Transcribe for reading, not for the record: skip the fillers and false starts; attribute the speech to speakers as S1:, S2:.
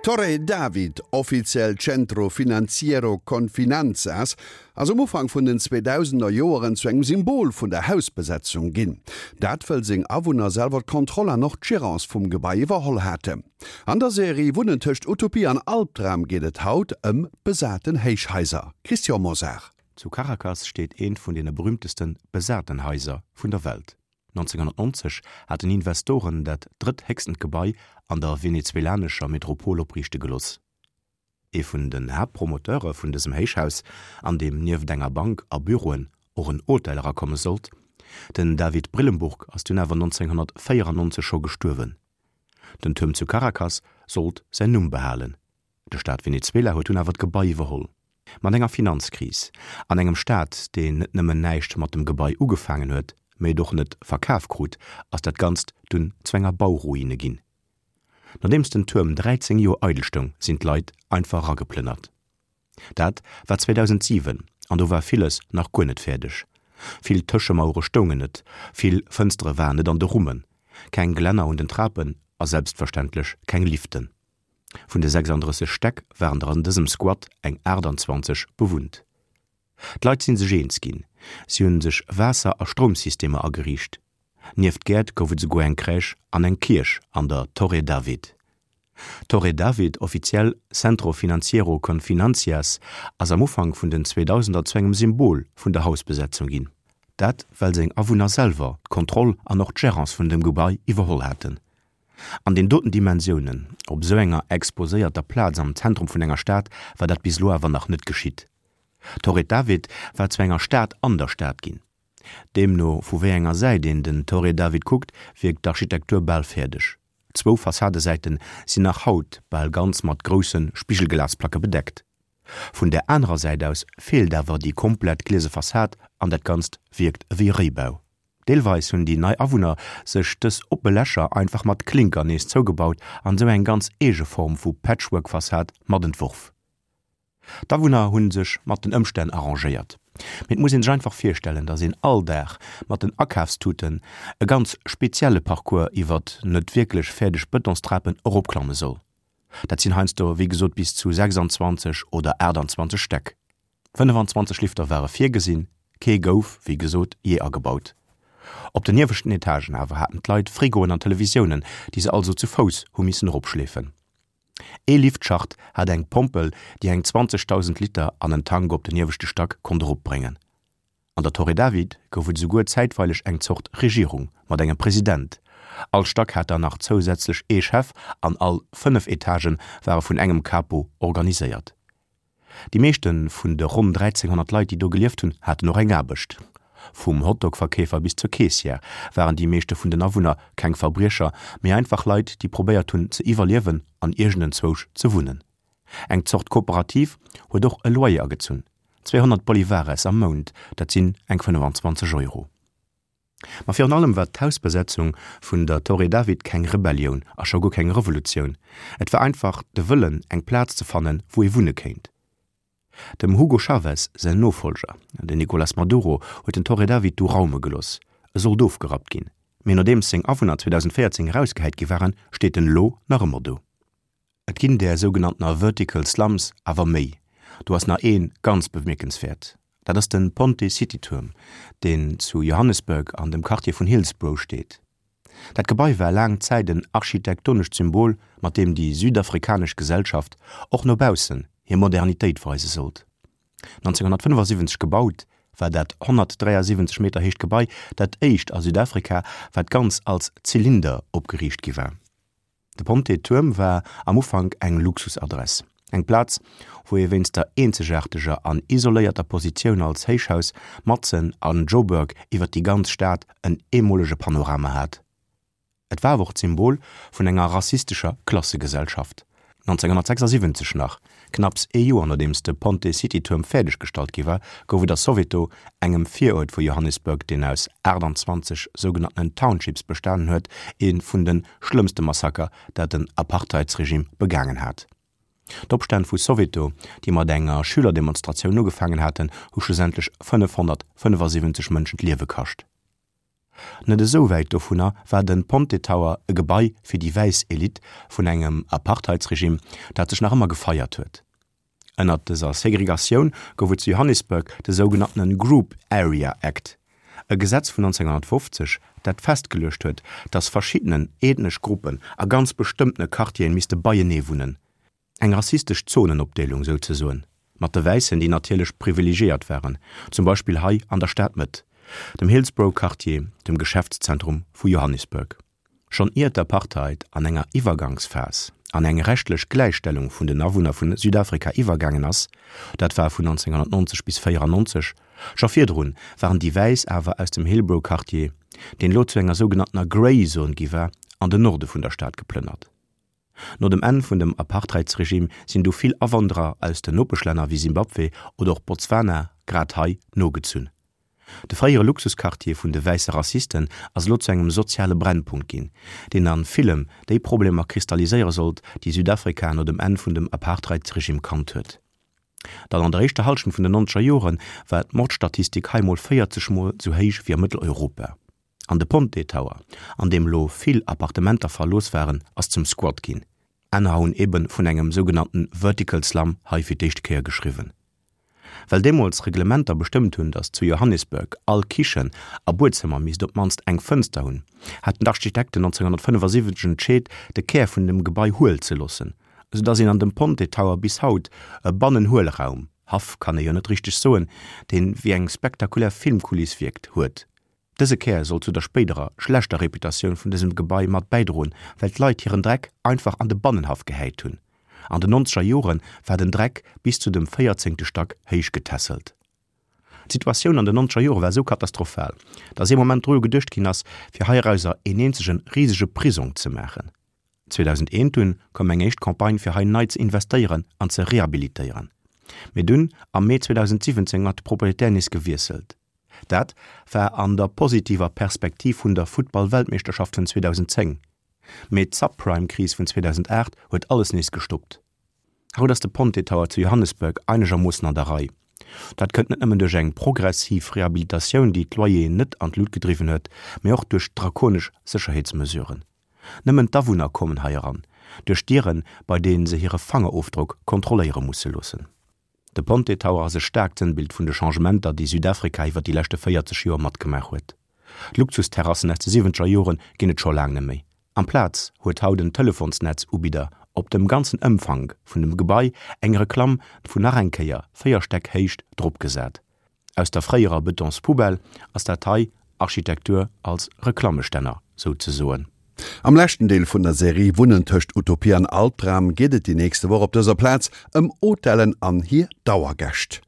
S1: D'Torre David, offiziell Centro Financiero Confinanzas, ass um Ufank vun den 2000er Joeren zu engem Symbol vun der Hausbesetzung ginn. Dat wëll seng Awunner selwer d'Kontroll an och d'Gérance vum Gebai iwwerholl haten. An der Serie Wunnen tëscht Utopie an Albdram geet et haut ëm besaten Héichhaiser. Christian Mosar.
S2: Zu Caracas steet eent vun deene berüümteste besaten Haiser vun der Welt. 1990 haten Investoren dat drëtthéchstent Gebai an der venezuelanescher Metropol opriichte gelooss. Ee vun den Haaptpromoteure vun dësem Héichhaus, an deem nieft enger Bank a Büroen och en Hotel erakomme sollt, den David Brillembourg, ass dunn awer 1994 scho gestuerwen. Den Tuerm zu Caracas sollt säin Numm behalen. De Staat Venezuela huet dunn awer d'Gebai iwwerholl. Mat enger Finanzkris an engem Staat, deen net nëmmen näischt mat dem Gebai ugefaangen huet, mee et och net verkaf krut, ass dat Ganzt dunn zu enger Bauruine ginn. Nodeems den Tuerm 13 Joer eidel stoung, sinn d'Leit einfach erageplënnert. Dat war 2007 an do war villes nach guer net fäerdeg. Vill Tëschemauere stoungen net, vill Fënstere waren net an de Rummen, keng Glänner un den Trapen a selbstverständlech keng Liften. Vun de 36 Stäck waren der an dësem Squat eng 28 bewunnt. D'Leit si sech eens ginn, si hunn sech Waasser a Stroumsystemer ageriicht. Nieft Gäert gouf et esouguer eng Crèche an eng Kierch an der Torre David. D'Torre David, offiziell Centro Financiero Confinancias, ass am Ufank vun den Zweedausender zu engem Symbol vun der Hausbesetzung ginn. Dat well seng Awunner selwer d'Kontroll an och d'Gérance vun dem Gebai iwwerholl haten. An den doten Dimensiounen, op esou enger exposéierter Plaz am Zentrum vun enger Stad, war dat bis elo awer nach net geschitt. D'Torre David war zu enger Stad an der Stad ginn. Deemno vu wéi enger Säit een den Torre David kuckt, wierkt d'Architektur bal fäerdeg. Zwou Fassadesäite sinn nach haut bal ganz mat grousse Spigelglasplacke bedeckt. Vun der anerer Säit aus feelt awer déi komplett gliese Fassad an dat Ganzt wierkt ewéi e Réibau. Deelweis hunn déi nei Awunner sech dës oppe Lächer einfach mat Klinker nees zougebaut an esou eng ganz eege Form vu Patchwork-Fassad mat entworf. D'Awunner hu sech mat den Ëmstänn arrangéiert. Mee et muss een sech einfach virstellen, datt een all Dag mat den Akafstuten e ganz spezielle Parcours iwwert net wierklech fäerdeg Bëtonstrapen eropklamme soll. Dat sinn heiansdo wéi gesot bis zu 26 oder 28 Stäck. 25 Lifter ware virgesinn, kee gouf, wéi gesot, jee agebaut. Op den ieweschten Etagen awer haten d'Leit Frigoen an Televisiounen, déi se also zu Fouss hu missen eropschleefen. Ee Liftschacht hat eng Pompel, déi eng 20.000 Liter an en Tank op den ieweschte Stack konnt eropbréngen. An der Torre David gouf et esouguer zäitweileg eng Zort Regierung mat engem President. All Stack hat dann nach zousätzlech ee Chef an all 5 Etagë ware vun engem Capo organiséiert. Déi meeschte vun de ronn 1.300 Leit, déi do gelieft hunn, haten och eng Aarbecht. Vum Hotdog-Verkeefer bis zur Keessière waren déi meeschte vun den Awunner keng Verbriecher, mee einfach Leit, déi probéiert hunn ze iwwerliewen an iergendenzwousch ze wunnen. Eng Zort Kooperativ huet och e Loyer agezunn, 200 Bolivares am Mount, dat sinn eng 25 Euro. Ma virun allem war d'Hausbesetzung vun der Torre David keng Rebellioun a scho guer keng Revolutioun. Et war einfach de Wëllen, eng Plaz ze fannen, wou ee wunne kéint. Dem Hugo Chavez säin Nofollger, den Nicolas Maduro, huet den Torre David du raume gelooss. E sollt ofgerappt ginn, mee nodeems seng Awunner 2014 erausgehäit gi waren, steet en elo nach ëmmer do. Et ginn där sougenanntener Vertical Slums awer méi. Do ass nach ee ganz bemierkenswäert, dat ass de Ponte City Tuerm, deen zu Johannesburg an dem Quartier vun Hillsbrough steet. Dat Gebai war laang Zäit en architektonescht Symbol, mat deem déi südafrikanesch Gesellschaft och no baussen hir Modernitéit weise sollt. 1975 gebaut, war dat 173 Meter héicht Gebai dat éischt a Südafrika, wat ganz als Zylinder opgeriicht gi war. De Ponte Tuerm war am Ufank eng Luxusadress, eng Plaz, wou ee wéinst der eenzegaarteger an isoléierter Positioun als Héichhaus matzen an Joburg iwwer déi ganz Stad en eemolege Panorama hat. Et war awer och d'Symbol vun enger rassistescher Klassegesellschaft. 1976 nach, knapps ee Joer nodeems de Ponte City Tuerm fäerdeg gestallt gi war, gouf et a Soweto, engem Viruert vu Johannesburg, deen aus 28 sougenanntenen Townships bestanen huet, ee vun de schlëmmste Massaker, dat den Apartheidsregime begaangen hat. D'Opstänn vu Soweto, déi mat enger Schülerdemonstratioun ugefaangen haten, hu schlussendlech 575 Mënschen d'Liewe kascht. Net esou wäit dovunner war de Ponte Tower e Gebai fir déi wäiss Elite vun engem Apartheidsregime, dat sech nach ëmmer gefeiert huet. Ënnert dëser Segregatioun gouf et zu Johannesburg de sougenanntene Group Area Act, e Gesetz vun 1950, dat festgeluecht huet, datt verschiddenen ethnesch Gruppen a ganz bestëmmtene Quartieren misste beienee wunnen. Eng rassistesch Zonenopdeelung souzesoen, mat de Wäissen, déi natierlech privilegiéiert waren, zum Beispill hei an der Stadmëtt, dem Hillsborough-Quartier, dem Geschäftszentrum vu Johannesburg. Schonn ier d'Apartheid an enger Iwwergangsphas an eng rechtlech Gläichstellung vun den Awunner vun Südafrika iwwergaangen ass, dat war vun 1990 bis 94, scho virdrun waren déi Wäiss awer aus dem Hillbrow-Quartier, deen elo zu enger sougenanntener Grey Zone gi war, an den Norde vun der Stad geplënnert. No dem Enn vun dem Apartheidsregime sinn du vill Awanderer aus den Nopeschlänner wéi Simbabwe oder och Botswana grad hei nogezunn. De fréiere Luxusquartier vun de wäisse Rassisten ass elo zu engem soziale Brennpunkt ginn, deen a villem déi Problemer kristalliséiere sollt, déi Südafrika no dem Enn vun dem Apartheidsregime kannt huet. Dann an der éischter Hallschent vun den nonzeger Jore war d'Mordstatistik hei mol 40 mol sou héich wéi a Mëtteleuropa. An de Ponte Tower, an deem lo vill Appartementer verlooss waren, ass zum Squat ginn. Anerer hunn eben vun engem sougenannten Vertical Slum hei fir d'éischte Kéier geschriwwen. Well deemools Reglementer bestëmmt hunn, datt zu Johannesburg all Kichen a Buedzëmmer misst op d'mannst eng Fënster hunn, haten d'Architekten 1975 entscheet, de Kär vun dem Gebai huel ze loossen, sou datt een an dem Ponte Tower bis haut e Bannenhuelraum, Haff kann ee jo net richteg soen, deen wéi eng spektakulär Filmkuliss wierkt, huet. Dëse Kär soll zu der spéiderer schlechter Reputatioun vun dësem Gebai mat bäidroen, well d'Leit hiren Dreck einfach an de Bannenhaff gehäit hunn. An den nonzeger Jore war den Dreck bis zu dem véierzéngte Stack héich getässelt. D'Situatioun an den nonzeger Jore war esou katastrophal, datt ee Moment dru geduecht ginn ass, fir heirauser een eenzege risege Prisong ze maachen. 2001 dunn koum eng éischt Campagne fir hei nei ze investéieren an ze rehabilitéieren. Mee dunn am Mee 2017 huet de Proprietär nees gewiesselt. Dat war an der positiver Perspektiv vun der Futtball-Weltmeeschterschaft vun 2010. Mee d'Subprime-Kris vun 2008 huet alles nees gestoppt. Haut ass de Ponte Tower zu Johannesburg einegermoossen an der Rei. Dat kënnt net nëmmen duerch eng progressiv Rehabilitatioun, déi d'Loyeren net an d'Lut gedriwwen huet, mee och duerch drakonesch Sécherheetsmesuren. Nëmmen d'Awunner kommen hei eran, duerch Dieren, bei deenen se hire Fangerofdrock kontrolléiere musse loossen. De Ponte Tower ass e staarkt Sënnbild vun de Changementer, déi Südafrika iwwer déi leschte 40 Joer matgemaach huet. D'Luxusterrassen aus de siwwenzeger Jore ginn et scho laang net méi. Amplaz huet haut en Telefonsnetzubidder op dem ganzen Ëmfank vun dem Gebai eng Reklamm vun nach eng Kéier 4 Stäck Héicht dropgesat. Aus der fréierer Betonspoubelle ass dat hei Architektur als Reklammestänner souzesoen.
S1: Am leschten Deel vun der Serie Wunnen tëscht Utopie an Albdram geet et déi nächste Woch op dëser Plaz ëm Hotellen an hir Dauergäscht.